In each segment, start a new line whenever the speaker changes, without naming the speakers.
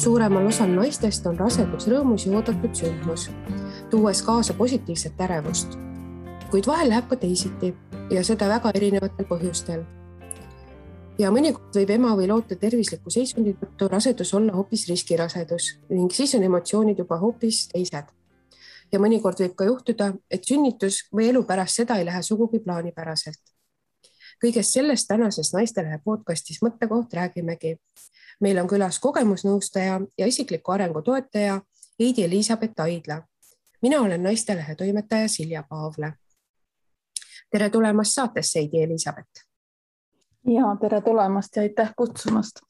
Suuremal osal naistest on rasedus rõõmus ja oodatud sündmus, tuues kaasa positiivset ärevust. Kuid vahel läheb ka teisiti ja seda väga erinevatel põhjustel. Ja mõnikord võib ema või loote tervisliku seisundi tõttu rasedus olla hoopis riskirasedus ning siis on emotsioonid juba hoopis teised. Ja mõnikord võib ka juhtuda, et sünnitus või elu pärast seda ei lähe sugugi plaanipäraselt. Kõigest sellest tänases Naistelehe podcastis Mõttekoht räägimegi. Meil on külas kogemusnõustaja ja isikliku arengu toetaja Heidi Elisabeth Aidla. Mina olen Naistelehe toimetaja Silja Paavle. Tere tulemast saatesse, Heidi Elisabeth.
Ja, tere tulemast ja aitäh kutsumast.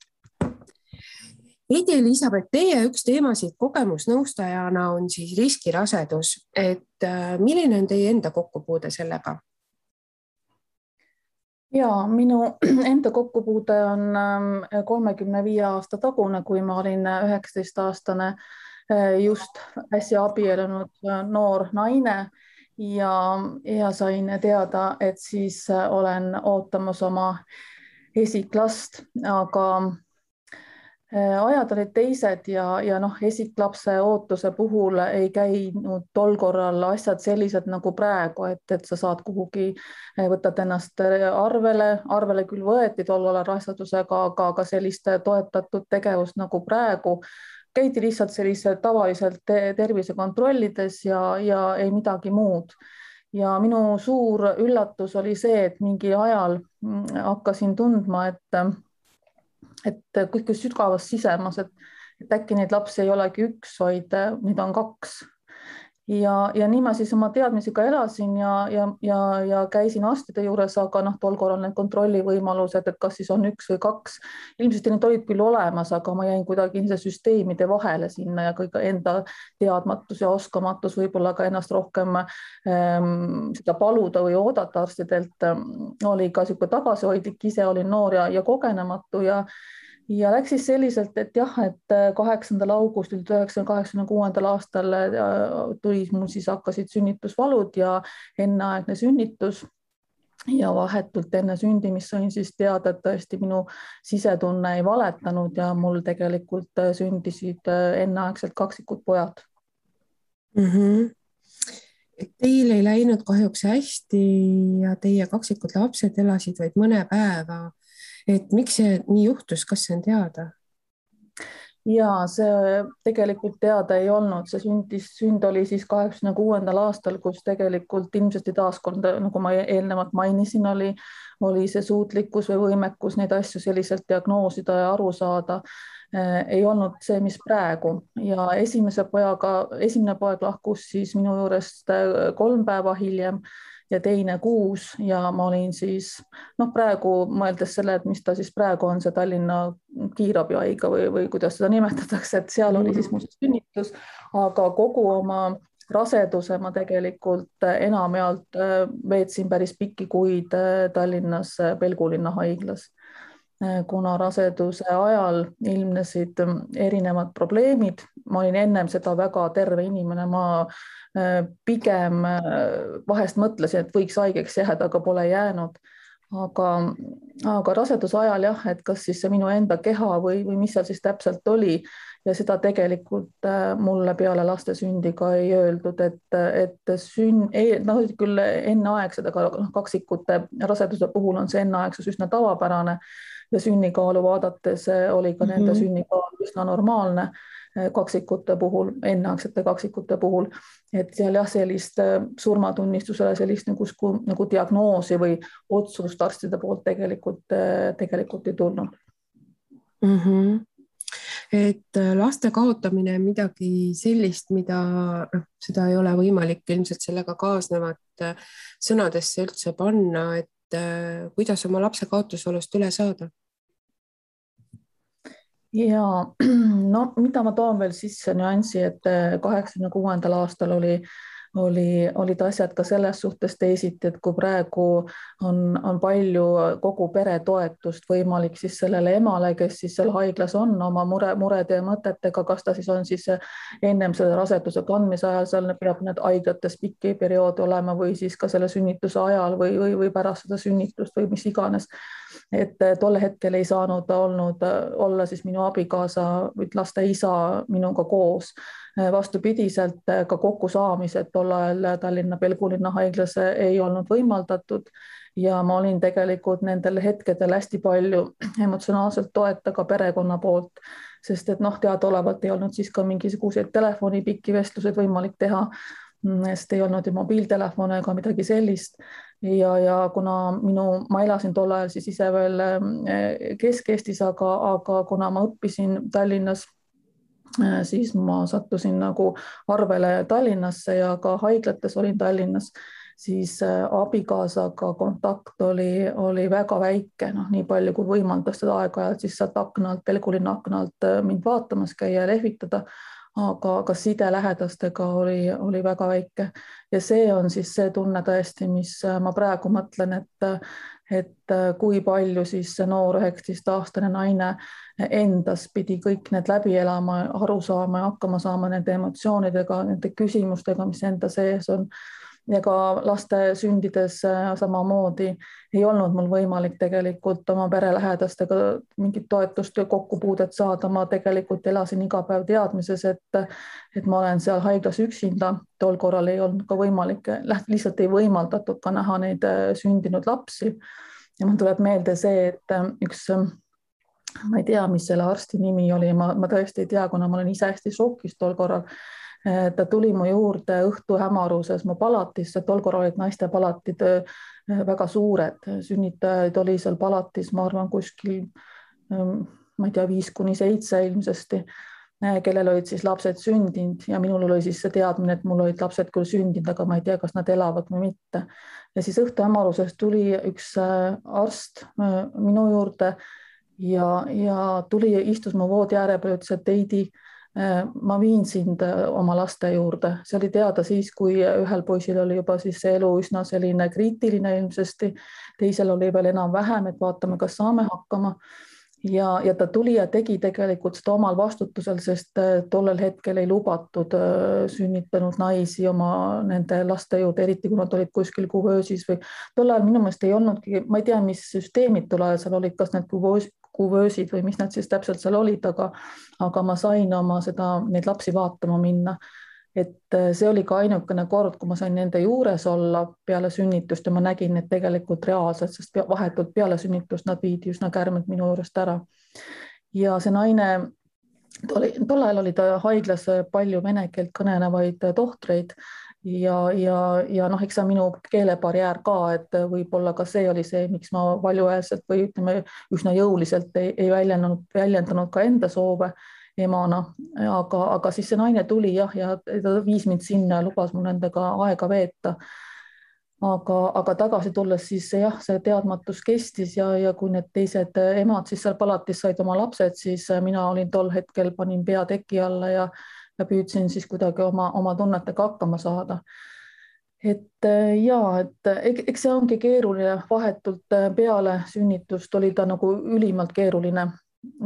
Heidi Elisabeth, teie üks teemasid kogemusnõustajana on siis riskirasedus. Milline on teie enda kokkupuude sellega?
Ja, minu enda kokkupuude on 35 aasta tagune, kui ma olin 19-aastane just äsja abielunud noor naine ja sain teada, et siis olen ootamas oma esiklast, aga ajad olid teised ja esiklapse ootuse puhul ei käinud tol korral asjad sellised nagu praegu, et sa saad kuhugi, võtad ennast arvele küll võeti tol ajal rasedusega, aga sellist toetatud tegevust nagu praegu käidi lihtsalt sellise tavaliselt tervisekontrollides ja ei midagi muud. Ja minu suur üllatus oli see, et mingi ajal hakkasin tundma, et kõik sügavas sisemas, et äkki neid lapsi ei olegi üks, vaid neid on kaks. Ja nii ma siis oma teadmisega elasin ja käisin arstide juures, aga tol korral need kontrollivõimalused, et kas siis on üks või kaks. Ilmselt need olid küll olemas, aga ma jäin kuidagi süsteemide vahele sinna ja kõik enda teadmatus ja oskamatus võib-olla ka ennast rohkem seda paluda või oodata arstidelt oli ka sihuke tagasihoidlik, ise olin noor ja kogenematu ja läks siis selliselt, et 8. augustil 1986. aastal tuli mul siis hakkasid sünnitusvalud ja enneaegne sünnitus ja vahetult enne sündimist sain siis teada, et tõesti minu sisetunne ei valetanud ja mul tegelikult sündisid enneaegselt kaksikud pojad.
Teil ei läinud kahjuks hästi ja teie kaksikud lapsed elasid vaid mõne päeva. Et miks see nii juhtus, kas see on teada?
Ja see tegelikult teada ei olnud. See sünd oli siis 86. aastal, kus tegelikult ilmselt taaskord, nagu ma eelnevalt mainisin, oli see suutlikkus või võimekus neid asju selliselt diagnoosida ja aru saada. Ei olnud see, mis praegu. Ja esimene poeg lahkus siis minu juurest 3 päeva hiljem ja teine 6 ja ma olin siis, praegu mõeldes selle, et mis ta siis praegu on, see Tallinna kiirabihaigla või kuidas seda nimetatakse, et seal oli siis muuseas sünnitus, aga kogu oma raseduse ma tegelikult enamjaolt veetsin päris pikki kuid Tallinnas Pelgulinna haiglas. Kuna raseduse ajal ilmnesid erinevad probleemid, ma olin ennem seda väga terve inimene, ma pigem vahest mõtlesin, et võiks haigeks jääda, aga pole jäänud. Aga raseduse ajal et kas siis see minu enda keha või mis seal siis täpselt oli ja seda tegelikult mulle peale laste sündi ka ei öeldud, et küll enneaegsed, aga kaksikute raseduse puhul on see enneaegsus üsna tavapärane ja sünnikaalu vaadates oli ka nende sünnikaal üsna normaalne kaksikute puhul, enneaegsete kaksikute puhul, et seal sellist surmatunnistusele sellist nagu diagnoosi või otsust arstide poolt tegelikult ei tulnud.
Et laste kaotamine on midagi sellist, seda ei ole võimalik ilmselt sellega kaasnevat sõnadesse üldse panna, et kuidas oma lapse kaotusolust üle saada?
Ja mida ma toon veel sisse nüansi, et 86. aastal olid asjad ka selles suhtes teisiti, et kui praegu on palju kogu pere toetust võimalik siis sellele emale, kes siis seal haiglas on oma murede ja mõtetega, kas ta siis on siis ennem selle raseduse kandmise ajal, seal peab need haiglates pikki perioode olema või siis ka selle sünnituse ajal või pärast seda sünnitust või mis iganes. Et tolle hetkel ei saanud ta olla siis minu abikaasa või laste isa minuga koos. Vastupidiselt ka kokkusaamised tol ajal Tallinna Pelgulinna haiglas ei olnud võimaldatud ja ma olin tegelikult nendel hetkedel hästi palju emotsionaalselt toeta ka perekonna poolt, sest et teadaolevalt ei olnud siis ka mingisuguseid telefoni pikki vestluseid võimalik teha, sest ei olnud ju mobiiltelefone ega midagi sellist. Ja kuna ma elasin tol ajal siis ise veel Kesk-Eestis, aga kuna ma õppisin Tallinnas, siis ma sattusin nagu arvele Tallinnasse ja ka haiglates olin Tallinnas, siis abikaasaga kontakt oli väga väike, nii palju kui võimaldas seda aeg-ajalt siis sealt aknalt, Pelgulinna aknalt mind vaatamas käia ja lehvitada, aga side lähedastega oli väga väike ja see on siis see tunne tõesti, mis ma praegu mõtlen, et kui palju siis see noor 19-aastane naine endas pidi kõik need läbi elama, aru saama ja hakkama saama nende emotsioonidega, nende küsimustega, mis enda sees on. Ja ka laste sündides samamoodi ei olnud mul võimalik tegelikult oma pere lähedastega mingit toetust ja kokkupuudet saada. Ma tegelikult elasin iga päev teadmises, et ma olen seal haiglas üksinda. Tol korral ei olnud ka võimalik, lihtsalt ei võimaldatud ka näha neid sündinud lapsi. Ja mul tuleb meelde see, et üks, ma ei tea, mis selle arsti nimi oli, ma tõesti ei tea, kuna ma olen ise hästi šokis tol korral. Ta tuli mu juurde õhtu hämaruses mu palatisse, tol korral olid naiste palatid väga suured, sünnitajaid oli seal palatis, ma arvan, kuskil, ma ei tea, 5-7 ilmsesti, kellel olid siis lapsed sündinud ja minul oli siis see teadmine, et mul olid lapsed küll sündinud, aga ma ei tea, kas nad elavad või mitte. Ja siis õhtu hämaruses tuli üks arst minu juurde ja tuli ja istus mu voodi ääre peal, ütles, et Heidi, ma viin sind oma laste juurde. See oli teada siis, kui ühel poisil oli juba siis see elu üsna selline kriitiline ilmsesti, teisel oli veel enam vähem, et vaatame, kas saame hakkama. Ja ta tuli ja tegi tegelikult seda omal vastutusel, sest tollel hetkel ei lubatud sünnitanud naisi oma nende laste juurde, eriti kui nad olid kuskil kuvöösis või tol ajal minu meelest ei olnudki, ma ei tea, mis süsteemid tol ajal seal olid, kas need kuvöösid või mis nad siis täpselt seal olid, aga ma sain neid lapsi vaatama minna. Et see oli ka ainukene kord, kui ma sain nende juures olla peale sünnitust ja ma nägin, et tegelikult reaalselt, sest vahetult peale sünnitust nad viidi üsna kärmelt minu juurest ära. Ja see naine, tol ajal oli ta haiglas palju vene keelt kõnelevaid tohtreid ja eks see minu keelebarjäär ka, et võib-olla ka see oli see, miks ma valjuhäälselt või ütleme üsna jõuliselt ei väljendanud ka enda soove emana, aga siis see naine tuli ja ta viis mind sinna ja lubas mul nendega aega veeta. Aga tagasi tulles siis see teadmatus kestis ja kui need teised emad siis seal palatis said oma lapsed, siis mina olin tol hetkel, panin pea teki alla ja püüdsin siis kuidagi oma tunnetega hakkama saada. Et eks see ongi keeruline, vahetult peale sünnitust oli ta nagu ülimalt keeruline.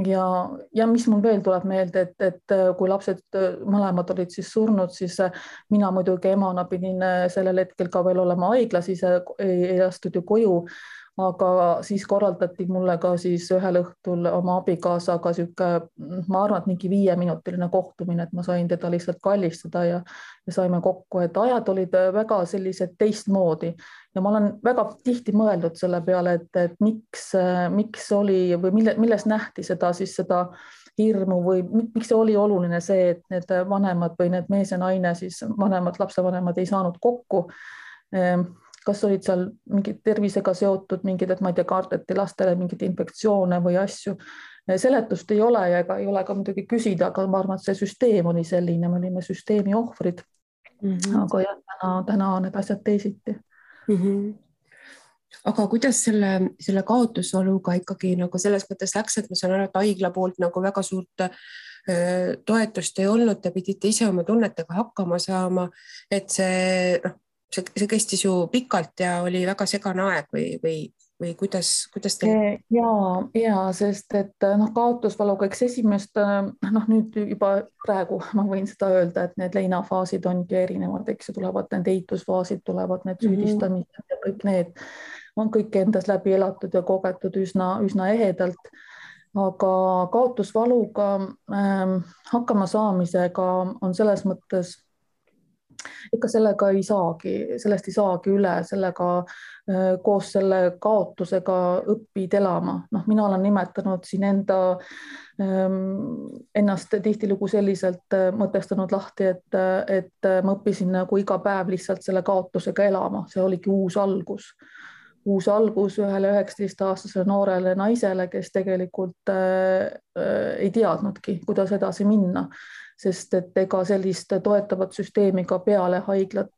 Ja mis mul veel tuleb meelde, et kui lapsed mõlemad olid siis surnud, siis mina muidugi emana pidin sellel hetkel ka veel olema haiglas, ise ei lastud ju koju, aga siis korraldati mulle ka siis ühel õhtul oma abikaasaga sihuke, ma arvan, et mingi 5-minutiline kohtumine, et ma sain teda lihtsalt kallistada ja saime kokku, et ajad olid väga sellised teistmoodi ja ma olen väga tihti mõeldud selle peale, et miks oli või milles nähti seda hirmu või miks see oli oluline see, et need vanemad või need mees ja naine, siis lapsevanemad ei saanud kokku. Kas olid seal mingid tervisega seotud mingid, et ma ei tea, kardeti lastele mingid infektsioone või asju. Seletust ei ole ja ei ole ka muidugi küsida, aga ma arvan, et see süsteem oli selline, me olime süsteemi ohvrid. Aga täna on need asjad teisiti.
Aga kuidas selle kaotusvaluga ikkagi nagu selles mõttes läks, et ma saan aru, et haigla poolt nagu väga suurt toetust ei olnud, te pidite ise oma tunnetega hakkama saama, et see kestis ju pikalt ja oli väga segane aeg või kuidas teil?
Ja, sest et kaotusvaluga, eks esimest, nüüd juba praegu ma võin seda öelda, et need leinafaasid ongi erinevad, eks ju, tulevad need eitusfaasid, tulevad need süüdistamised ja kõik need on kõik endas läbi elatud ja kogetud üsna ehedalt. Aga kaotusvaluga hakkama saamisega on selles mõttes, ikka sellest ei saagi üle, sellega koos selle kaotusega õpid elama. Mina olen nimetanud siin ennast tihtilugu selliselt mõtestanud lahti, et ma õppisin nagu iga päev lihtsalt selle kaotusega elama. See oligi uus algus ühele 19-aastasele noorele naisele, kes tegelikult ei teadnudki, kuidas edasi minna, sest et ega sellist toetavat süsteemi ka peale haiglat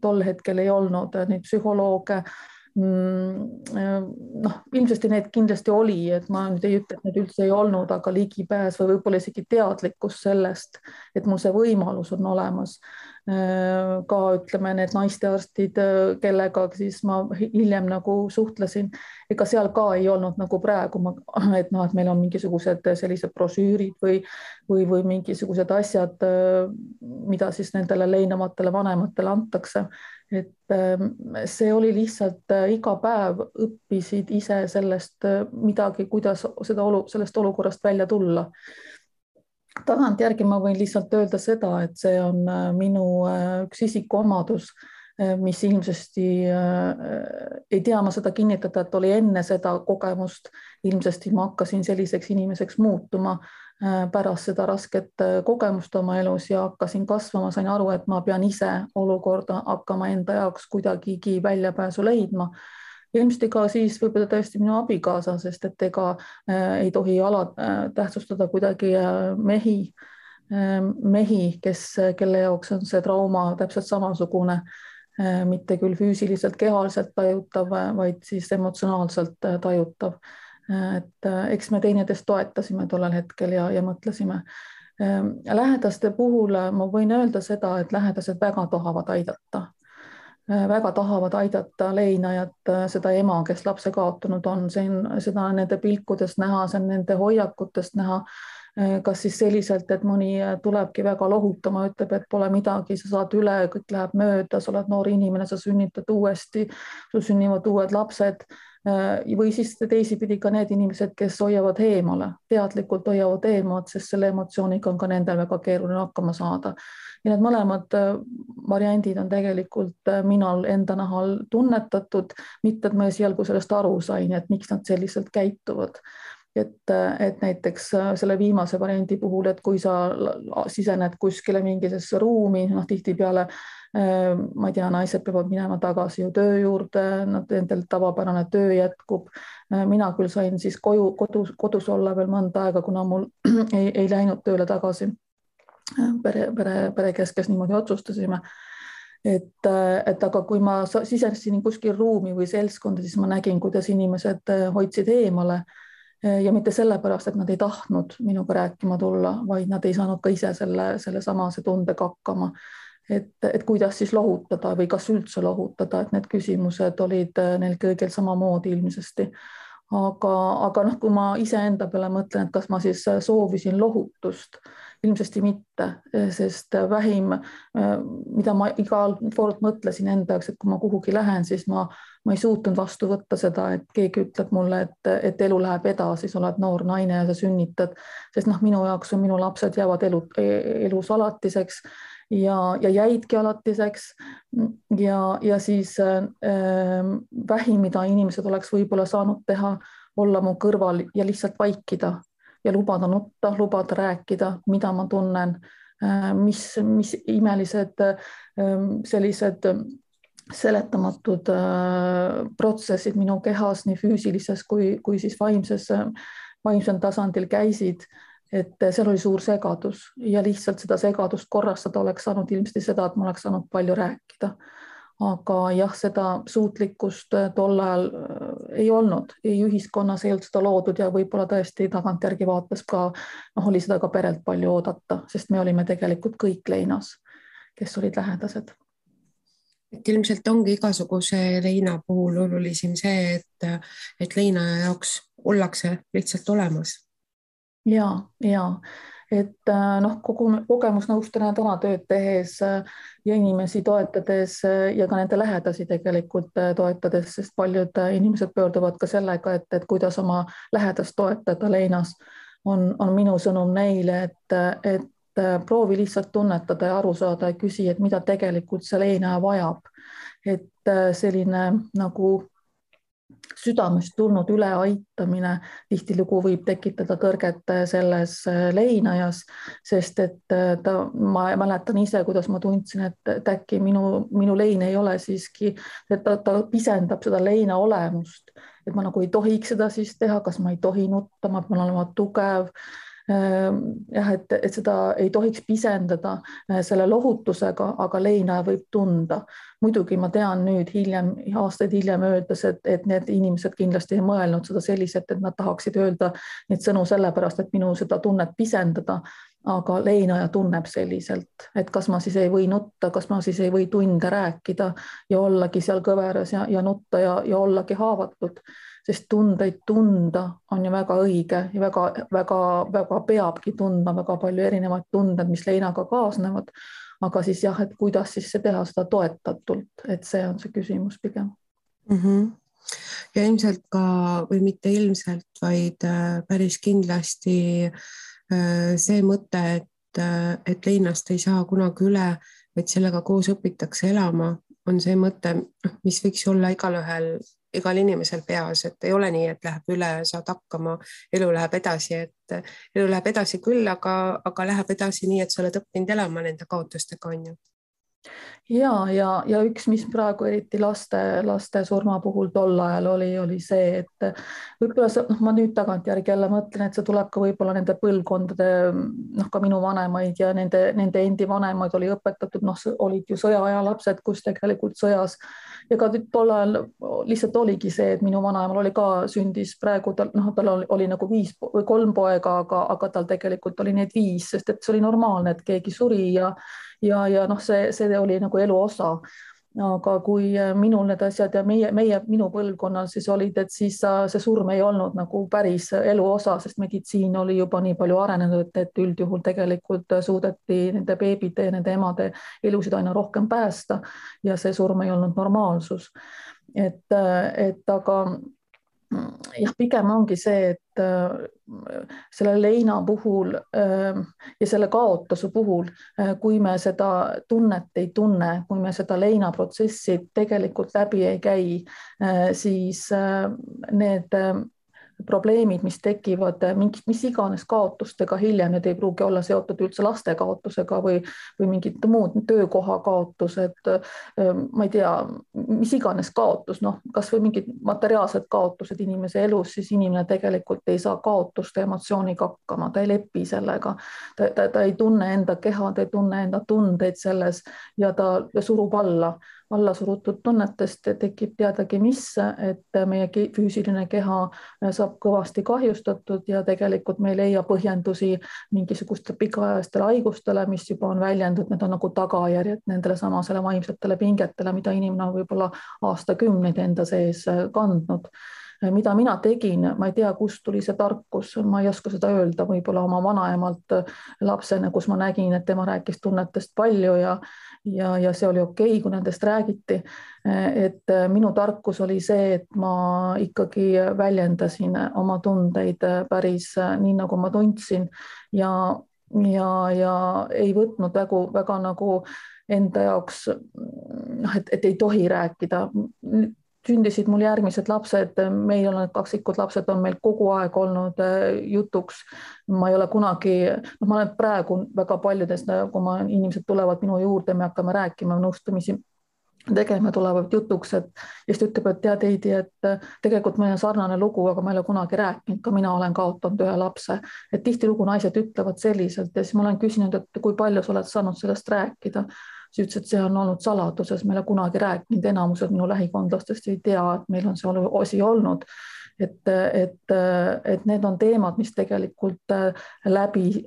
tol hetkel ei olnud, neid psühholooge. Ilmselt need kindlasti oli, et ma nüüd ei ütle, et need üldse ei olnud, aga ligipääs või võib-olla isegi teadlikkus sellest, et mul see võimalus on olemas. Ka ütleme need naistearstid, kellega siis ma hiljem nagu suhtlesin, ega seal ka ei olnud nagu praegu, et meil on mingisugused sellised brošüürid või mingisugused asjad, mida siis nendele leinavatele vanematele antakse. Et see oli lihtsalt iga päev õppisid ise sellest midagi, kuidas sellest olukorrast välja tulla. Tagantjärgi ma võin lihtsalt öelda seda, et see on minu üks isikuomadus, mis ilmsesti ei tea ma seda kinnitada, et oli enne seda kogemust. Ilmsesti ma hakkasin selliseks inimeseks muutuma pärast seda rasket kogemust oma elus ja hakkasin kasvama, sain aru, et ma pean ise olukorda hakkama enda jaoks kuidagigi väljapääsu leidma. Ilmselt ka siis võib-olla tõesti minu abikaasa, sest et ega ei tohi tähtsustada kuidagi mehi, kelle jaoks on see trauma täpselt samasugune, mitte küll füüsiliselt, kehaliselt tajutav, vaid siis emotsionaalselt tajutav. Et eks me teineteist toetasime tollel hetkel ja mõtlesime. Lähedaste puhul ma võin öelda seda, et lähedased väga tahavad aidata leinajat, seda ema, kes lapse kaotanud on, seda nende pilkudest näha, see on nende hoiakutest näha, kas siis selliselt, et mõni tulebki väga lohutama, ütleb, et pole midagi, sa saad üle, kõik läheb mööda, sa oled noor inimene, sa sünnitad uuesti, sul sünnivad uued lapsed. Või siis teisipidi ka need inimesed, kes hoiavad eemale, teadlikult hoiavad eemalt, sest selle emotsiooniga on ka nendel väga keeruline hakkama saada. Ja need mõlemad variandid on tegelikult minal enda nahal tunnetatud, mitte et ma esialgu sellest aru sain, et miks nad selliselt käituvad. Et näiteks selle viimase variandi puhul, et kui sa sisened kuskile mingisesse ruumi, tihtipeale ma ei tea, naised peavad minema tagasi ju töö juurde, nendel tavapärane töö jätkub. Mina küll sain siis kodus olla veel mõnda aega, kuna mul ei läinud tööle tagasi. Pere keskes niimoodi otsustasime. Et aga kui ma sisenesin kuskil ruumi või seltskonda, siis ma nägin, kuidas inimesed hoidsid eemale ja mitte sellepärast, et nad ei tahtnud minuga rääkima tulla, vaid nad ei saanud ka ise selle samase tundega hakkama. Et kuidas siis lohutada või kas üldse lohutada, et need küsimused olid neil kõigil samamoodi ilmsesti. Aga kui ma iseenda peale mõtlen, et kas ma siis soovisin lohutust, ilmsesti mitte, sest vähim, mida ma igal kord mõtlesin enda jaoks, et kui ma kuhugi lähen, siis ma ei suutnud vastu võtta seda, et keegi ütleb mulle, et elu läheb edasi, sa oled noor naine ja sa sünnitad, sest minu jaoks on minu lapsed jäävad elus alatiseks ja jäidki alatiseks ja siis vähim, mida inimesed oleks võib-olla saanud teha, olla mu kõrval ja lihtsalt vaikida ja lubada nutta, lubada rääkida, mida ma tunnen, mis imelised sellised seletamatud protsessid minu kehas nii füüsilises kui siis vaimsel tasandil käisid. Et seal oli suur segadus ja lihtsalt seda segadust korrastada oleks saanud ilmselt seda, et ma oleks saanud palju rääkida. aga jah, seda suutlikkust tol ajal ei olnud, ei ühiskonnas ei olnud seda loodud ja võib-olla tõesti tagantjärgi vaates ka oli seda ka perelt palju oodata, sest me olime tegelikult kõik leinas, kes olid lähedased.
Et ilmselt ongi igasuguse leina puhul olulisim see, et leinaja jaoks ollakse lihtsalt olemas.
Ja, et kogu kogemusnõustajana täna tööd tehes ja inimesi toetades ja ka nende lähedasi tegelikult toetades, sest paljud inimesed pöörduvad ka sellega, et kuidas oma lähedast toetada leinas, on minu sõnum neile, et proovi lihtsalt tunnetada ja aru saada ja küsi, et mida tegelikult see leinaja vajab. Et selline nagu südamest tulnud üleaitamine tihtilugu võib tekitada tõrget selles leinajas, sest et ma mäletan ise, kuidas ma tundsin, et äkki minu lein ei ole siiski, et ta pisendab seda leina olemust, et ma nagu ei tohiks seda siis teha, kas ma ei tohi nutta, ma pean olema tugev. Jah, et seda ei tohiks pisendada selle lohutusega, aga leinaja võib tunda. Muidugi ma tean nüüd aastaid hiljem öeldes, et need inimesed kindlasti ei mõelnud seda selliselt, et nad tahaksid öelda neid sõnu sellepärast, et minu seda tunnet pisendada, aga leinaja tunneb selliselt, et kas ma siis ei või nutta, kas ma siis ei või tunde rääkida ja ollagi seal kõveras ja nutta ja ollagi haavatud. Sest tundeid tunda on ju väga õige ja väga peabki tundma väga palju erinevaid tunded, mis leinaga kaasnevad. Aga siis jah, et kuidas siis see teha seda toetatult, et see on see küsimus pigem.
Ja ilmselt ka, või mitte ilmselt, vaid päris kindlasti see mõte, et leinast ei saa kunagi üle, vaid sellega koos õpitakse elama, on see mõte, mis võiks olla igal inimesel peas, et ei ole nii, et läheb üle, saad hakkama, elu läheb edasi, et elu läheb edasi küll, aga läheb edasi nii, et sa oled õppinud elama nende kaotustega, on ju.
Ja üks, mis praegu eriti laste surma puhul tol ajal oli see, et võib-olla ma nüüd tagantjärgi jälle mõtlen, et see tuleb ka võib-olla nende põlvkondade, ka minu vanemaid ja nende endi vanemaid oli õpetatud, olid ju sõjaaja lapsed, kus tegelikult sõjas ja ka tol ajal lihtsalt oligi see, et minu vanaemal oli ka sündis praegu, tal oli nagu 3 poega, aga tal tegelikult oli neid 5, sest et see oli normaalne, et keegi suri ja see oli nagu elu osa. Aga kui minul need asjad ja minu põlvkonnal siis olid, et siis see surm ei olnud nagu päris elu osa, sest meditsiin oli juba nii palju arenenud, et üldjuhul tegelikult suudeti nende beebide ja nende emade elusid aina rohkem päästa ja see surm ei olnud normaalsus. Aga jah, pigem ongi see, et selle leina puhul ja selle kaotuse puhul, kui me seda tunnet ei tunne, kui me seda leina protsessi tegelikult läbi ei käi, siis need probleemid, mis tekivad mis iganes kaotustega hiljem, need ei pruugi olla seotud üldse laste kaotusega või mingid muud töökoha kaotused, ma ei tea, mis iganes kaotus, kas või mingid materiaalsed kaotused inimese elus, siis inimene tegelikult ei saa kaotuste emotsiooniga hakkama, ta ei lepi sellega, ta ei tunne enda keha, ta ei tunne enda tundeid selles ja ta surub alla surutud tunnetest tekib teadagi mis, et meie füüsiline keha saab kõvasti kahjustatud ja tegelikult me ei leia põhjendusi mingisugustele pikaajalistele haigustele, mis juba on väljendunud, need on nagu tagajärjed nendele samasele vaimsetele pingetele, mida inimene on võib-olla aastakümneid enda sees kandnud. Mida mina tegin, ma ei tea, kust tuli see tarkus, ma ei oska seda öelda, võib-olla oma vanaemalt lapsena, kus ma nägin, et tema rääkis tunnetest palju ja see oli okei, kui nendest räägiti. Et minu tarkus oli see, et ma ikkagi väljendasin oma tundeid päris nii, nagu ma tundsin ja ei võtnud väga nagu enda jaoks, et ei tohi rääkida. Sündisid mul järgmised lapsed, meil on kaksikud lapsed, on meil kogu aeg olnud jutuks. Ma ei ole kunagi, ma olen praegu väga paljudest, kui inimesed tulevad minu juurde, me hakkame rääkima nõustamisi tegema, tulevad jutuks, et just ütleb, et tead Heidi, et tegelikult meil on sarnane lugu, aga ma ei ole kunagi rääkinud, ka mina olen kaotanud ühe lapse, et tihtilugu naised ütlevad selliselt ja siis ma olen küsinud, et kui palju sa oled saanud sellest rääkida. siis ütles, et see on olnud saladuses, meile kunagi rääkinud, enamused minu lähikondlastest ei tea, et meil on see osi olnud. Et need on teemad, mis tegelikult läbi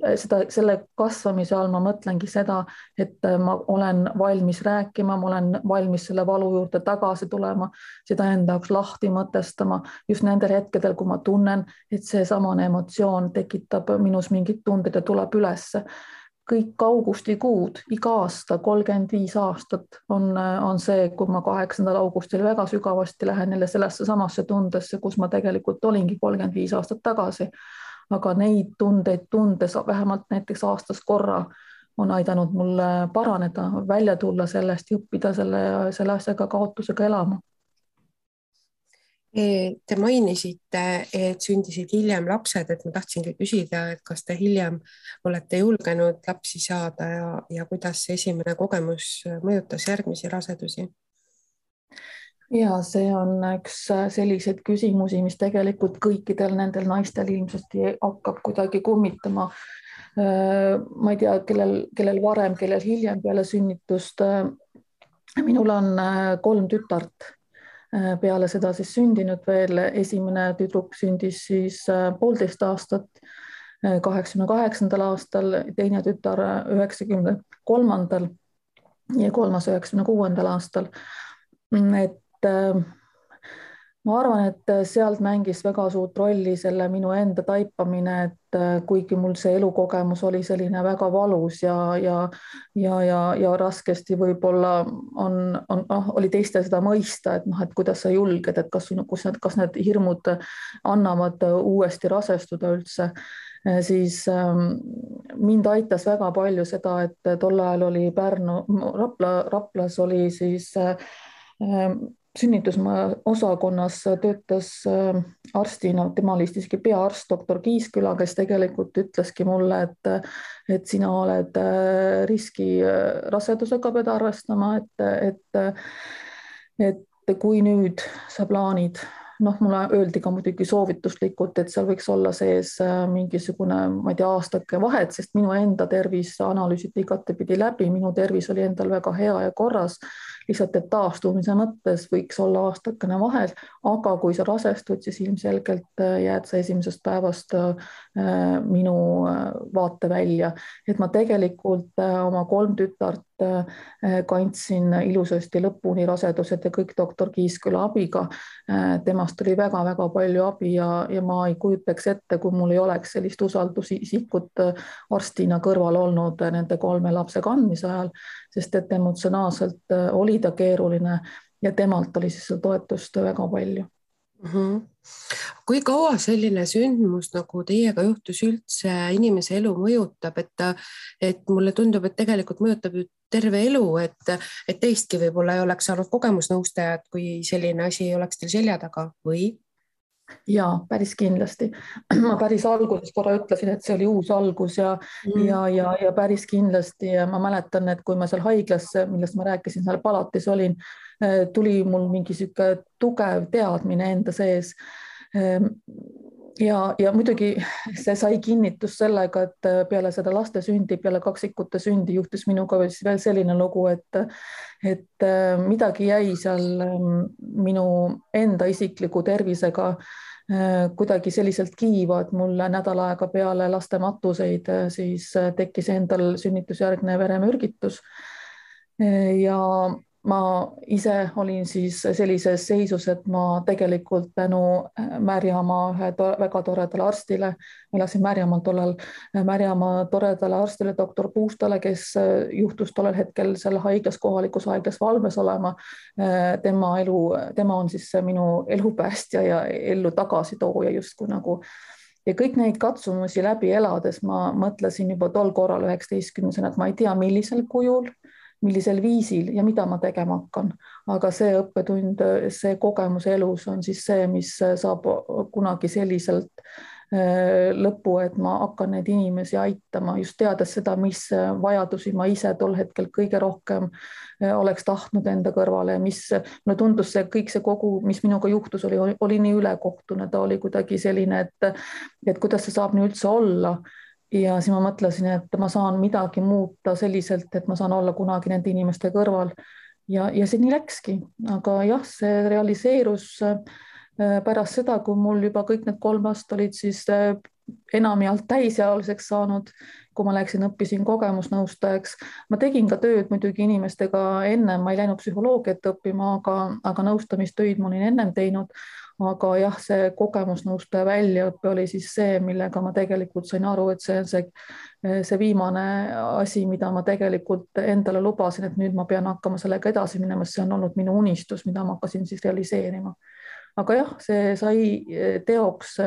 selle kasvamise all ma mõtlengi seda, et ma olen valmis rääkima, ma olen valmis selle valu juurde tagasi tulema, seda enda jaoks lahti mõtestama just nendel hetkedel, kui ma tunnen, et see samane emotsioon tekitab minus mingid tunded ja tuleb ülesse. Kõik augustikuud, iga aasta, 35 aastat on see, kui ma 8. augustil väga sügavasti lähen jälle sellesse samasse tundesse, kus ma tegelikult olingi 35 aastat tagasi. Aga neid tundeid tundes vähemalt näiteks aastas korra on aidanud mul paraneda, välja tulla sellest ja õppida selle asjaga, kaotusega elama.
Te mainisite, et sündisid hiljem lapsed, et ma tahtsingi küsida, et kas te hiljem olete julgenud lapsi saada ja kuidas see esimene kogemus mõjutas järgmisi rasedusi?
Ja see on üks selliseid küsimusi, mis tegelikult kõikidel nendel naistel ilmselt hakkab kuidagi kummitama. Ma ei tea, kellel varem, kellel hiljem peale sünnitust. Minul on 3 tütart. Peale seda siis sündinud veel, esimene tüdruk sündis siis 1,5 aastat, 88. aastal, teine tütar 93. ja kolmas 96. aastal. Et ma arvan, et sealt mängis väga suurt rolli selle minu enda taipamine, et kuigi mul see elukogemus oli selline väga valus ja raskesti võib-olla oli teiste seda mõista, et kuidas sa julged, et kas need hirmud annavad uuesti rasestuda üldse, siis mind aitas väga palju seda, et tol ajal oli Raplas oli siis sünnitusmaja-osakonnas töötas arstina, tema oli siiski peaarst, doktor Kiisküla, kes tegelikult ütleski mulle, et sina oled riski rasedusega pead arvestama, et kui nüüd sa plaanid, mulle öeldi ka muidugi soovituslikult, et seal võiks olla sees mingisugune, ma ei tea, aastake vahet, sest minu enda tervis analüüsiti igatepidi läbi, minu tervis oli endal väga hea ja korras, lihtsalt et taastumise mõttes võiks olla aastakene vahel, aga kui sa rasestud, siis ilmselgelt jääd sa esimesest päevast minu vaate välja. Et ma tegelikult oma 3 tütart kandsin ilusasti lõpuni rasedused ja kõik doktor Kiisküla abiga. Temast oli väga-väga palju abi ja ma ei kujutaks ette, kui mul ei oleks sellist usaldusisikut arstina kõrval olnud nende 3 lapse kandmise ajal, sest et emotsionaalselt oli ta keeruline ja temalt oli siis toetust väga palju.
Kui kaua selline sündmus nagu teiega juhtus üldse inimese elu mõjutab, et mulle tundub, et tegelikult mõjutab ju terve elu, et teistki võib-olla ei oleks saanud kogemusnõustajat, kui selline asi ei oleks teil selja taga või?
Ja päris kindlasti. Ma päris alguses korra ütlesin, et see oli uus algus ja päris kindlasti. Ja ma mäletan, et kui ma seal haiglas, millest ma rääkisin, seal palatis olin, tuli mul mingi siuke tugev teadmine enda sees. Ja muidugi see sai kinnitus sellega, et peale seda laste sündi, peale kaksikute sündi juhtus minuga veel selline lugu, et midagi jäi seal minu enda isikliku tervisega kuidagi selliselt kiiva, et mul nädal aega peale laste matuseid siis tekkis endal sünnitusjärgne veremürgitus ja ma ise olin siis sellises seisus, et ma tegelikult tänu Märjamaa ühe väga toredale arstile, elasin Märjamaal tollal, Märjamaa toredale arstile, doktor Puustale, kes juhtus tollel hetkel seal haiglas, kohalikus haiglas valves olema. Tema on siis minu elupäästja ja ellu tagasi tooja justkui nagu. Ja kõik neid katsumusi läbi elades ma mõtlesin juba tol korral 19-sena, et ma ei tea, millisel kujul, millisel viisil ja mida ma tegema hakkan. Aga see õppetund, see kogemus elus on siis see, mis saab kunagi selliselt lõppu, et ma hakkan neid inimesi aitama, just teades seda, mis vajadusi ma ise tol hetkel kõige rohkem oleks tahtnud enda kõrvale ja mis mulle tundus see kõik see kogu, mis minuga juhtus, oli nii ülekohtune, ta oli kuidagi selline, et kuidas see saab nii üldse olla. ja siis ma mõtlesin, et ma saan midagi muuta selliselt, et ma saan olla kunagi nende inimeste kõrval ja see nii läkski, aga jah, see realiseerus pärast seda, kui mul juba kõik need 3 last olid siis enamjaolt täisealiseks saanud, kui ma läksin, õppisin kogemusnõustajaks. Ma tegin ka tööd muidugi inimestega enne, ma ei läinud psühholoogiat õppima, aga nõustamistöid ma olin ennem teinud. Aga jah, see kogemusnõustaja väljaõppe oli siis see, millega ma tegelikult sain aru, et see on see viimane asi, mida ma tegelikult endale lubasin, et nüüd ma pean hakkama sellega edasi minema, see on olnud minu unistus, mida ma hakkasin siis realiseerima. Aga jah, see sai teoks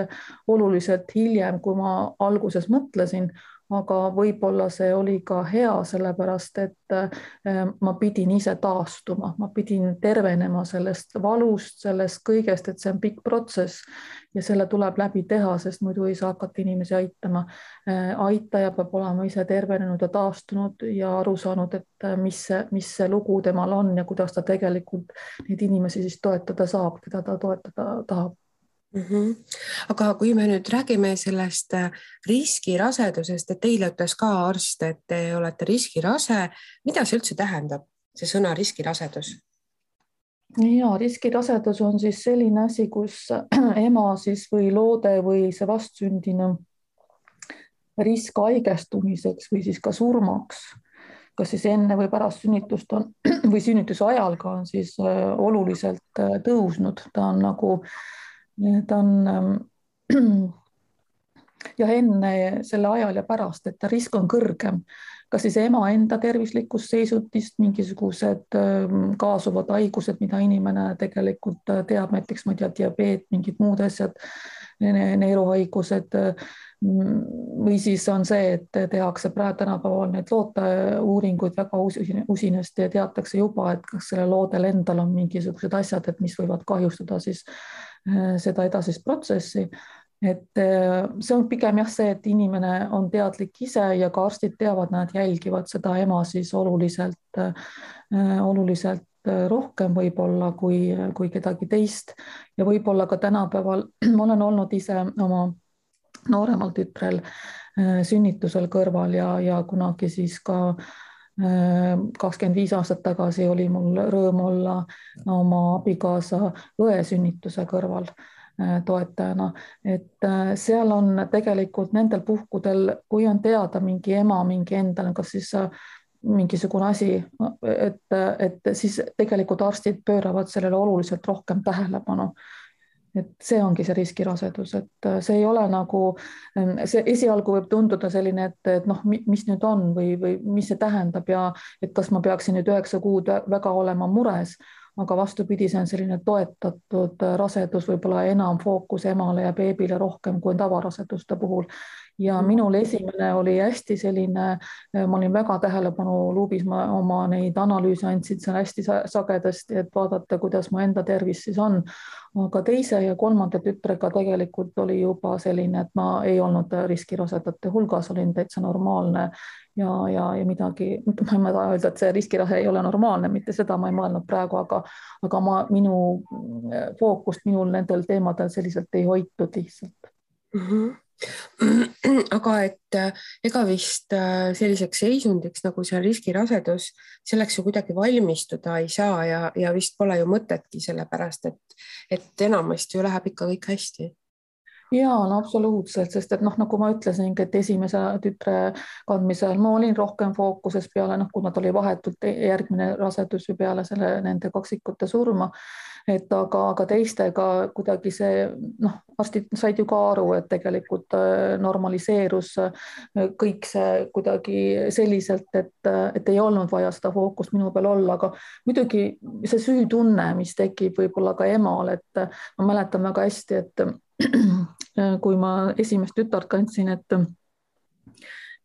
oluliselt hiljem, kui ma alguses mõtlesin, aga võib-olla see oli ka hea, sellepärast et ma pidin ise taastuma, ma pidin tervenema sellest valust, sellest kõigest, et see on pikk protsess ja selle tuleb läbi teha, sest muidu ei saa hakata inimesi aitama. Aitaja peab olema ise tervenenud ja taastunud ja aru saanud, et mis see lugu temal on ja kuidas ta tegelikult neid inimesi siis toetada saab, keda ta toetada tahab.
Aga kui me nüüd räägime sellest riskirasedusest, et teile ütles ka arst, et te olete riskirase, mida see üldse tähendab, see sõna riskirasedus?
Ja, riskirasedus on siis selline asi, kus ema siis või loode või see vastsündinu risk haigestumiseks või siis ka surmaks, kas siis enne või pärast sünnitust on või sünnituse ajal ka on siis oluliselt tõusnud, ta on ja enne selle ajal ja pärast, et risk on kõrgem, kas siis ema enda tervislikust seisundist, mingisugused kaasuvad haigused, mida inimene tegelikult teab, näiteks ma ei tea, diabeet, mingid muud asjad, neeruhaigused või siis on see, et tehakse praegu tänapäeval need looteuuringuid väga usinasti ja teatakse juba, et kas selle loodel endal on mingisugused asjad, et mis võivad kahjustada siis seda edasist protsessi. Et see on pigem jah see, et inimene on teadlik ise ja ka arstid teavad, nad jälgivad seda ema siis oluliselt rohkem võib-olla kui kedagi teist ja võib-olla ka tänapäeval ma olen olnud ise oma nooremal tütrel sünnitusel kõrval ja kunagi siis ka 25 aastat tagasi oli mul rõõm olla oma abikaasa õe sünnituse kõrval toetajana, et seal on tegelikult nendel puhkudel, kui on teada mingi ema, mingi endal, kas siis mingisugune asi, et siis tegelikult arstid pööravad sellele oluliselt rohkem tähelepanu. Et see ongi see riskirasedus, et see ei ole nagu, see esialgu võib tunduda selline, et noh, mis nüüd on või mis see tähendab ja et kas ma peaksin nüüd 9 kuud väga olema mures, aga vastupidi, see on selline toetatud rasedus, võib-olla enam fookus emale ja beebile rohkem kui tavaraseduste puhul. Ja minul esimene oli hästi selline, ma olin väga tähelepanu luubis, ma oma neid analüüse andsin seal hästi sagedasti, et vaadata, kuidas mu enda tervis siis on. Aga teise ja kolmanda tütrega tegelikult oli juba selline, et ma ei olnud riskirasedate hulgas, olin täitsa normaalne ja midagi, ma ei taha öelda, et see riskirase ei ole normaalne, mitte seda ma ei mõelnud praegu, aga minu fookust minul nendel teemadel selliselt ei hoitud lihtsalt.
Aga et ega vist selliseks seisundiks nagu see riskirasedus, selleks ju kuidagi valmistuda ei saa ja vist pole ju mõtetki, sellepärast et enamasti ju läheb ikka kõik hästi.
Ja, no absoluutselt, sest et noh, nagu ma ütlesin, et esimese tütre kandmisel ma olin rohkem fookuses peale, kuna ta oli vahetult järgmine rasedus ju peale nende kaksikute surma, et aga teistega kuidagi see, arstid said ju ka aru, et tegelikult normaliseerus kõik see kuidagi selliselt, et ei olnud vaja seda fookust minu peal olla, aga muidugi see süütunne, mis tekib võib-olla ka emal, et ma mäletan väga hästi, et kui ma esimest tütart kandsin,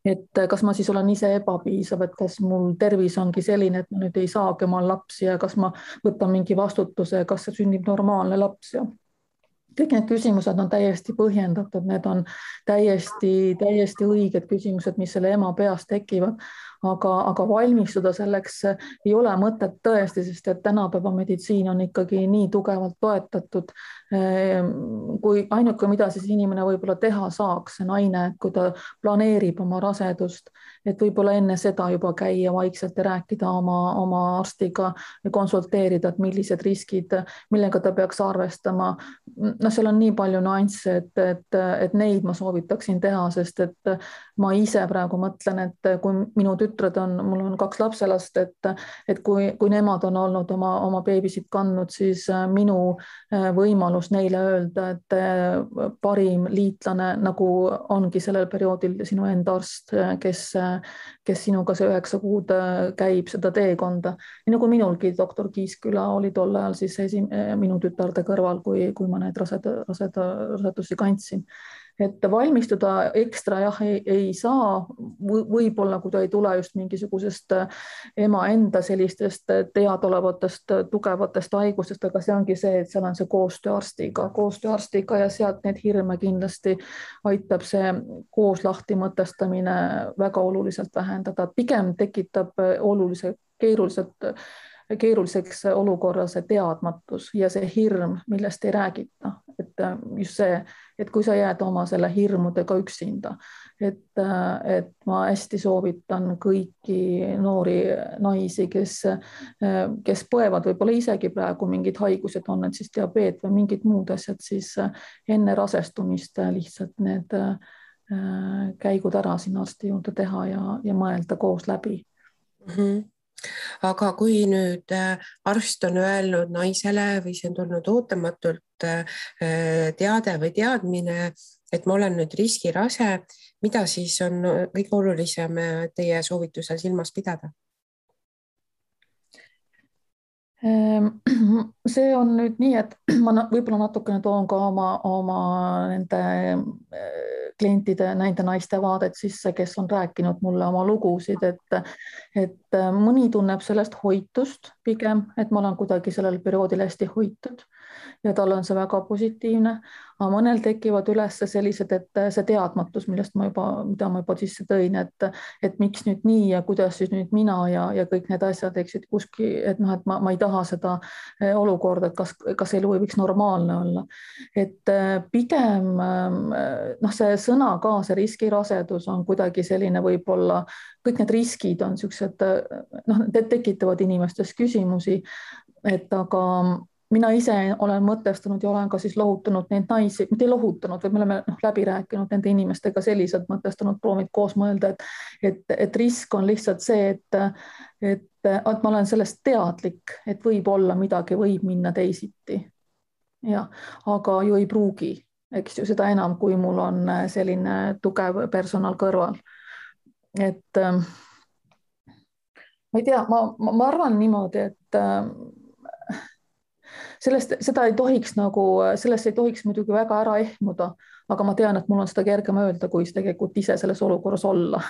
et kas ma siis olen ise ebapiisav, et kas mul tervis ongi selline, et ma nüüd ei saagi omal lapsi ja kas ma võtan mingi vastutuse, kas see sünnib normaalne laps ja kõik need küsimused on täiesti põhjendatud, need on täiesti õiged küsimused, mis selle ema peas tekivad, aga valmistuda selleks ei ole mõtet tõesti, sest et tänapäeva meditsiin on ikkagi nii tugevalt toetatud. Kui ainuke, mida siis inimene võib-olla teha saaks, see naine, kui ta planeerib oma rasedust, et võib-olla enne seda juba käia vaikselt ja rääkida oma arstiga ja konsulteerida, et millised riskid, millega ta peaks arvestama. No seal on nii palju nüansse, et neid ma soovitaksin teha, sest et ma ise praegu mõtlen, et kui minu tütred on, mul on 2 lapselast, et kui nemad on olnud oma beebisid kandnud, siis minu võimalus neile öelda, et parim liitlane nagu ongi sellel perioodil sinu enda arst, kes sinuga see 9 kuud käib seda teekonda. Nii nagu minulgi doktor Kiisküla oli tol ajal siis minu tütarde kõrval, kui ma need rasedusi kandsin. Et valmistuda ekstra jah, ei saa, võib-olla kui ta ei tule just mingisugusest ema enda sellistest teadolevatest tugevatest haigustest, aga see ongi see, et seal on see koostöö arstiga ja sealt need hirme kindlasti aitab see koos lahti mõtestamine väga oluliselt vähendada. Pigem tekitab keeruliseks olukorra see teadmatus ja see hirm, millest ei räägita. Et just see, et kui sa jääd oma selle hirmudega üksinda, et ma hästi soovitan kõiki noori naisi, kes põevad võib-olla isegi praegu mingid haigused, on need siis diabeet või mingid muud asjad, siis enne rasestumist lihtsalt need käigud ära sinna arsti juurde teha ja mõelda koos läbi.
Aga kui nüüd arst on öelnud naisele või see on tulnud ootamatult teade või teadmine, et ma olen nüüd riskirase, mida siis on kõige olulisem teie soovitusel silmas pidada?
See on nüüd nii, et ma võib-olla natukene toon ka oma nende klientide, nende naiste vaadet sisse, kes on rääkinud mulle oma lugusid, et mõni tunneb sellest hoitust pigem, et ma olen kuidagi sellel perioodil hästi hoitud ja tal on see väga positiivne, aga mõnel tekivad üles sellised, et see teadmatus, mida ma juba sisse tõin, et miks nüüd nii ja kuidas siis nüüd mina ja kõik need asjad, eks, et ma ei taha seda olukorda, et kas elu ei võiks normaalne olla. Et pigem see sõna ka, see riskirasedus on kuidagi selline, võib-olla kõik need riskid on sellised, tekitavad inimestes küsimusi, et aga mina ise olen mõtestanud ja olen ka siis lohutanud neid naisi, mitte lohutanud, või me oleme läbi rääkinud nende inimestega selliselt mõtestanud, proovinud koos mõelda, et risk on lihtsalt see, et ma olen sellest teadlik, et võib-olla midagi võib minna teisiti. Ja, aga ju ei pruugi, eks ju, seda enam, kui mul on selline tugev personal kõrval. Et ma ei tea, ma arvan niimoodi, et sellest ei tohiks muidugi väga ära ehmuda, aga ma tean, et mul on seda kergem öelda, kui tegelikult ise selles olukorras olla.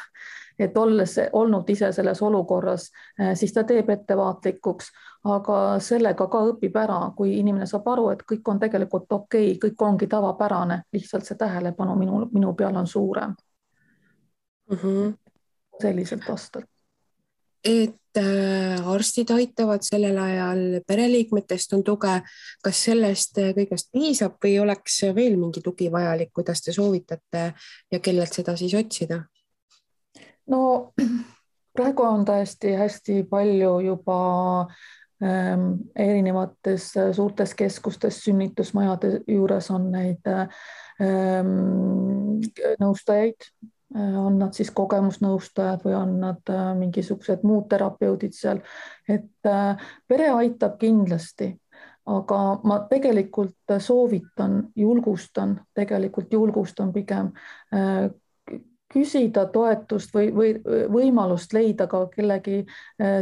Et olles olnud ise selles olukorras, siis ta teeb ettevaatlikuks, aga sellega ka õpib ära, kui inimene saab aru, et kõik on tegelikult okei, kõik ongi tavapärane, lihtsalt see tähelepanu minu peal on suurem. Selliselt vastad.
Et arstid aitavad sellel ajal, pereliikmetest on tuge, kas sellest kõigest piisab või oleks veel mingi tugi vajalik, kuidas te soovitate ja kellelt seda siis otsida?
No praegu on tõesti hästi palju juba erinevates suurtes keskustes, sünnitusmajade juures on neid nõustajaid, on nad siis kogemusnõustajad või on nad mingisugused muud terapeudid seal, et pere aitab kindlasti, aga ma tegelikult soovitan, julgustan pigem küsida toetust või võimalust leida ka kellegi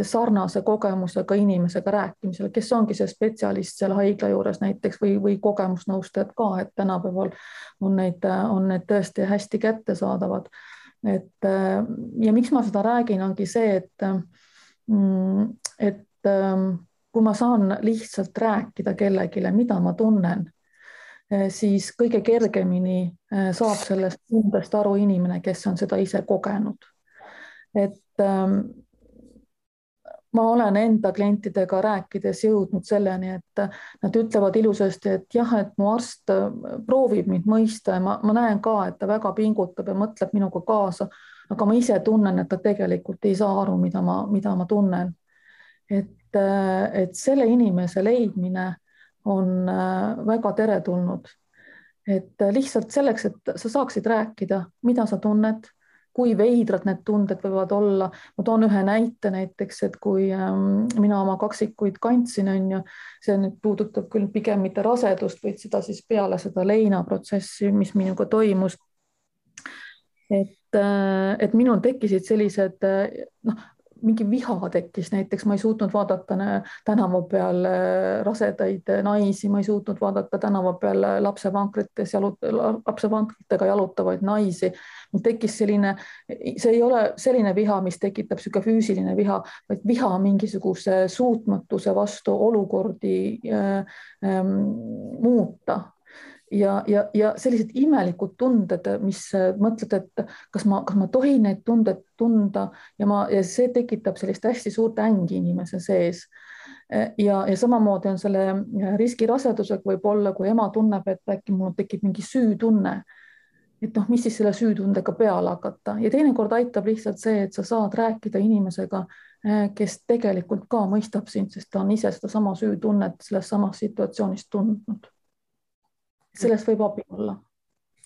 sarnase kogemusega inimesega rääkimisel, kes ongi see spetsialist seal haigla juures näiteks või kogemusnõustajad ka, et tänapäeval on need tõesti hästi kättesaadavad. Ja miks ma seda räägin, ongi see, et kui ma saan lihtsalt rääkida kellegile, mida ma tunnen, siis kõige kergemini saab sellest tundest aru inimene, kes on seda ise kogenud. Et ma olen enda klientidega rääkides jõudnud selleni, et nad ütlevad ilusasti, et jah, et mu arst proovib mind mõista ja ma näen ka, et ta väga pingutab ja mõtleb minuga kaasa, aga ma ise tunnen, et ta tegelikult ei saa aru, mida ma tunnen. Et selle inimese leidmine on väga teretulnud. Et lihtsalt selleks, et sa saaksid rääkida, mida sa tunned, kui veidrad need tunded võivad olla. Ma toon ühe näite näiteks, et kui mina oma kaksikuid kandsin, see nüüd puudutab küll pigem mitte rasedust, vaid seda siis peale seda leinaprotsessi, mis minuga toimus. Et minul tekkisid sellised, mingi viha tekkis, näiteks ma ei suutnud vaadata tänava peal rasedaid naisi, ma ei suutnud vaadata tänava peal lapsevankritega jalutavaid naisi. Mul tekkis selline, see ei ole selline viha, mis tekitab selline füüsiline viha, vaid viha mingisuguse suutmatuse vastu olukordi muuta. Ja sellised imelikud tunded, mis mõtled, et kas ma tohin neid tunded tunda ja see tekitab sellist hästi suurt ängi inimese sees. Ja samamoodi on selle riskirasedusega võib olla, kui ema tunneb, et äkki mul tekib mingi süütunne, et mis siis selle süütundega peale hakata. Ja teinekord aitab lihtsalt see, et sa saad rääkida inimesega, kes tegelikult ka mõistab sind, sest ta on ise seda sama süütunnet selles samas situatsioonis tundnud. Sellest võib abi olla,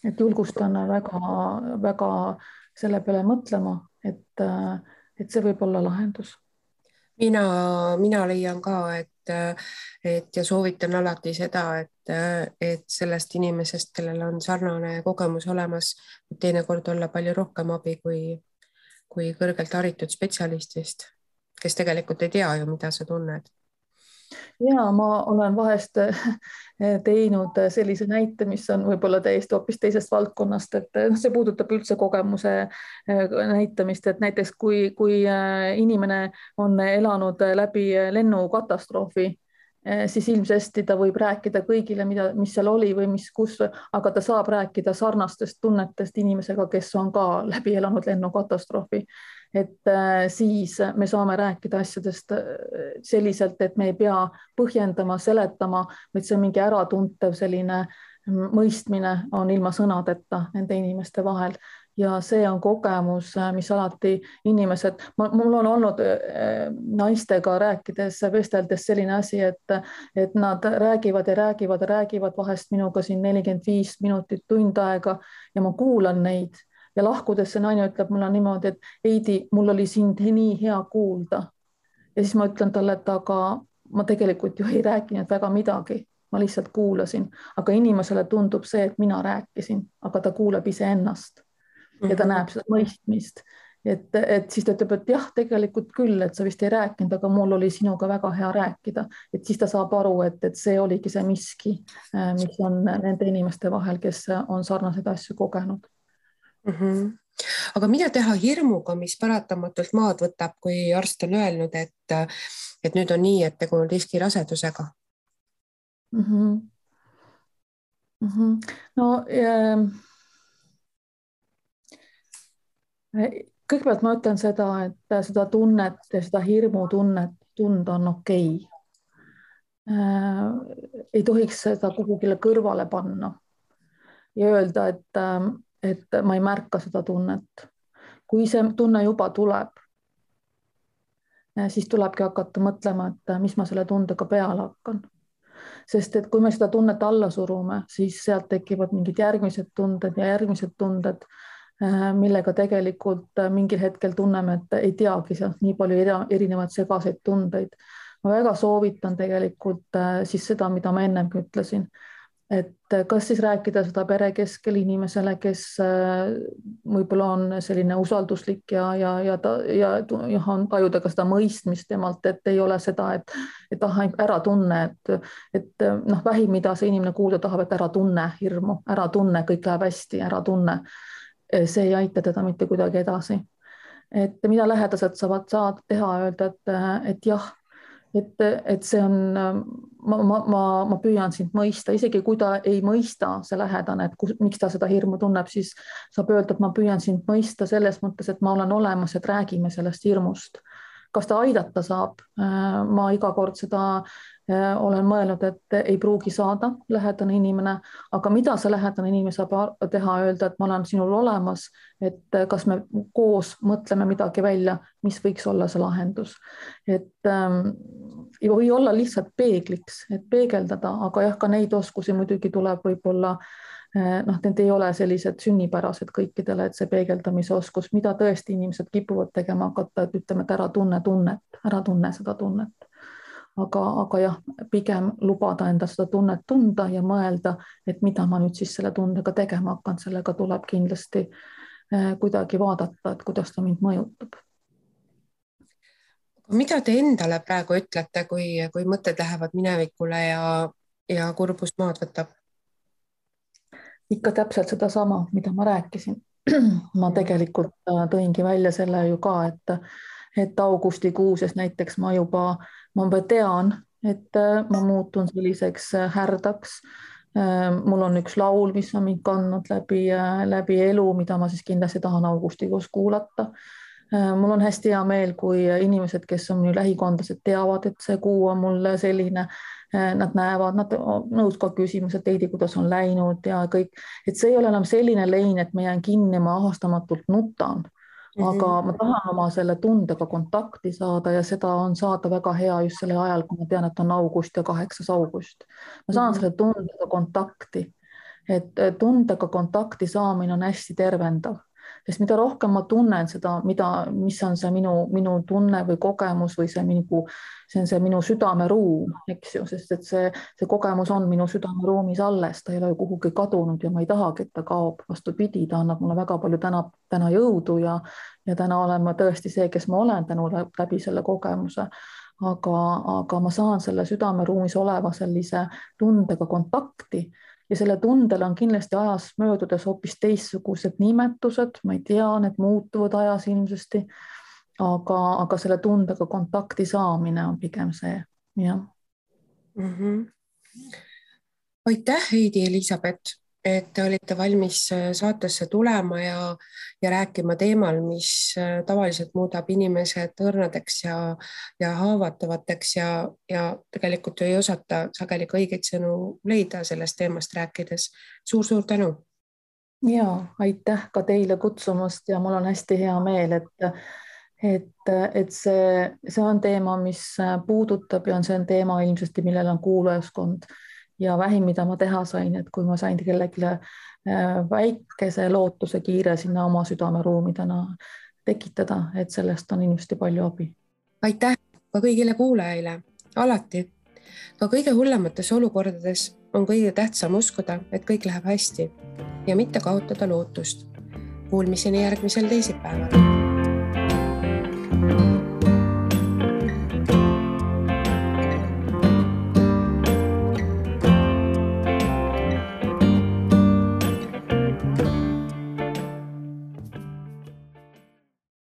et julgustan väga selle peale mõtlema, et see võib olla lahendus.
Mina leian ka, et ja soovitan alati seda, et sellest inimesest, kellel on sarnane kogemus olemas, teinekord olla palju rohkem abi kui kõrgelt haritud spetsialistist, kes tegelikult ei tea ju, mida sa tunned.
Ja ma olen vahest teinud sellise näite, mis on võib-olla täiesti hoopis teisest valdkonnast, et see puudutab üldse kogemuse näitamist, et näiteks kui inimene on elanud läbi lennukatastroofi, siis ilmsesti ta võib rääkida kõigile, mis seal oli või kus, aga ta saab rääkida sarnastest tunnetest inimesega, kes on ka läbi elanud lennukatastroofi. Et siis me saame rääkida asjadest selliselt, et me ei pea põhjendama, seletama, vaid see on mingi äratuntev selline mõistmine on ilma sõnadeta nende inimeste vahel. Ja see on kogemus, mis alati inimesed, mul on olnud naistega rääkides, vesteldes selline asi, et nad räägivad ja räägivad vahest minuga siin 45 minutit, tund aega ja ma kuulan neid. Ja lahkudes see naine ütleb mulle niimoodi, et Heidi, mul oli sind nii hea kuulda. Ja siis ma ütlen talle, et aga ma tegelikult ju ei rääkinud väga midagi, ma lihtsalt kuulasin, aga inimesele tundub see, et mina rääkisin, aga ta kuuleb iseennast ja ta näeb seda mõistmist. Et siis ta ütleb, et jah, tegelikult küll, et sa vist ei rääkinud, aga mul oli sinuga väga hea rääkida. Et siis ta saab aru, et see oligi see miski, mis on nende inimeste vahel, kes on sarnaseid asju kogenud.
Aga mida teha hirmuga, mis paratamatult maad võtab, kui arst on öelnud, et nüüd on nii, et tegu on riskirasedusega?
No kõigepealt ma ütlen seda, et seda tunnet ja seda hirmutunnet tunda on okei. Ei tohiks seda kuhugile kõrvale panna ja öelda, et ma ei märka seda tunnet. Kui see tunne juba tuleb, siis tulebki hakata mõtlema, et mis ma selle tundega peale hakkan. Sest et kui me seda tunnet alla surume, siis sealt tekivad mingid järgmised tunded, millega tegelikult mingil hetkel tunneme, et ei teagi sealt nii palju erinevaid segaseid tundeid. Ma väga soovitan tegelikult siis seda, mida ma ennemgi ütlesin. Et kas siis rääkida seda pere keskel inimesele, kes võib-olla on selline usalduslik ja tajuda ka seda mõistmist temalt, et ei ole seda, et ära tunne, et vähim, mida see inimene kuulda tahab, et ära tunne hirmu, ära tunne, kõik läheb hästi, ära tunne. See ei aita teda mitte kuidagi edasi. Et mida lähedased saavad teha, öelda, et jah, et see on, ma püüan sind mõista, isegi kui ta ei mõista, see lähedane, et miks ta seda hirmu tunneb, siis saab öelda, et ma püüan sind mõista selles mõttes, et ma olen olemas, et räägime sellest hirmust. Kas ta aidata saab? Ma iga kord seda olen mõelnud, et ei pruugi saada lähedane inimene, aga mida see lähedane inimene saab teha, öelda, et ma olen sinul olemas, et kas me koos mõtleme midagi välja, mis võiks olla see lahendus. Et ei või olla lihtsalt peegliks, et peegeldada, aga jah, ka neid oskusi muidugi tuleb võib-olla, need ei ole sellised sünnipärased kõikidele, et see peegeldamise oskus, mida tõesti inimesed kipuvad tegema hakata, et ütleme, et ära tunne seda tunnet. Aga jah, pigem lubada enda seda tunnet tunda ja mõelda, et mida ma nüüd siis selle tundega tegema hakkan, sellega tuleb kindlasti kuidagi vaadata, et kuidas ta mind mõjutab.
Mida te endale praegu ütlete, kui mõtted lähevad minevikule ja kurbus maad võtab?
Ikka täpselt sedasama, mida ma rääkisin. Ma tegelikult tõingi välja selle ju ka, et augustikuus näiteks ma juba tean, et ma muutun selliseks härdaks. Mul on üks laul, mis on mind kandnud läbi elu, mida ma siis kindlasti tahan augustikuus kuulata. Mul on hästi hea meel, kui inimesed, kes on minu lähikondlased, teavad, et see kuu on mul selline, nad näevad, nad nõus ka küsimused, Heidi, kuidas on läinud ja kõik, et see ei ole enam selline lein, et ma jään kinni, ma ahastamatult nutan, aga ma tahan oma selle tundega kontakti saada ja seda on saada väga hea just selle ajal, kui ma tean, et on august ja 8. august. Ma saan selle tundega kontakti, et tundega kontakti saamine on hästi tervendav. Sest mida rohkem ma tunnen seda, mis on see minu tunne või kogemus või see on see minu südameruum, eks ju, sest et see kogemus on minu südameruumis alles, ta ei ole kuhugi kadunud ja ma ei tahagi, et ta kaob. Vastupidi, ta annab mulle väga palju täna jõudu ja täna olen ma tõesti see, kes ma olen tänu läbi selle kogemuse. Aga ma saan selle südameruumis oleva sellise tundega kontakti. Ja selle tundel on kindlasti ajas möödudes hoopis teistsugused nimetused, ma ei tea, need muutuvad ajas ilmsesti, aga selle tundega kontakti saamine on pigem see, jah.
Aitäh, Heidi, Elisabeth, et te olite valmis saatesse tulema ja rääkima teemal, mis tavaliselt muudab inimesed õrnadeks ja haavatavateks ja tegelikult ei osata sageli õigeid sõnu leida sellest teemast rääkides. Suur tänu.
Ja, aitäh ka teile kutsumast ja mul on hästi hea meel, et see on teema, mis puudutab ja see on teema ilmselt, millel on kuulajaskond. Ja vähim, mida ma teha sain, et kui ma sain kellelegi väikese lootuse kiire sinna oma südameruumidena tekitada, et sellest on ilmselt palju abi.
Aitäh ka kõigile kuulajaile. Alati, ka kõige hullemates olukordades on kõige tähtsam uskuda, et kõik läheb hästi ja mitte kaotada lootust. Kuulmiseni järgmisel teisipäeval.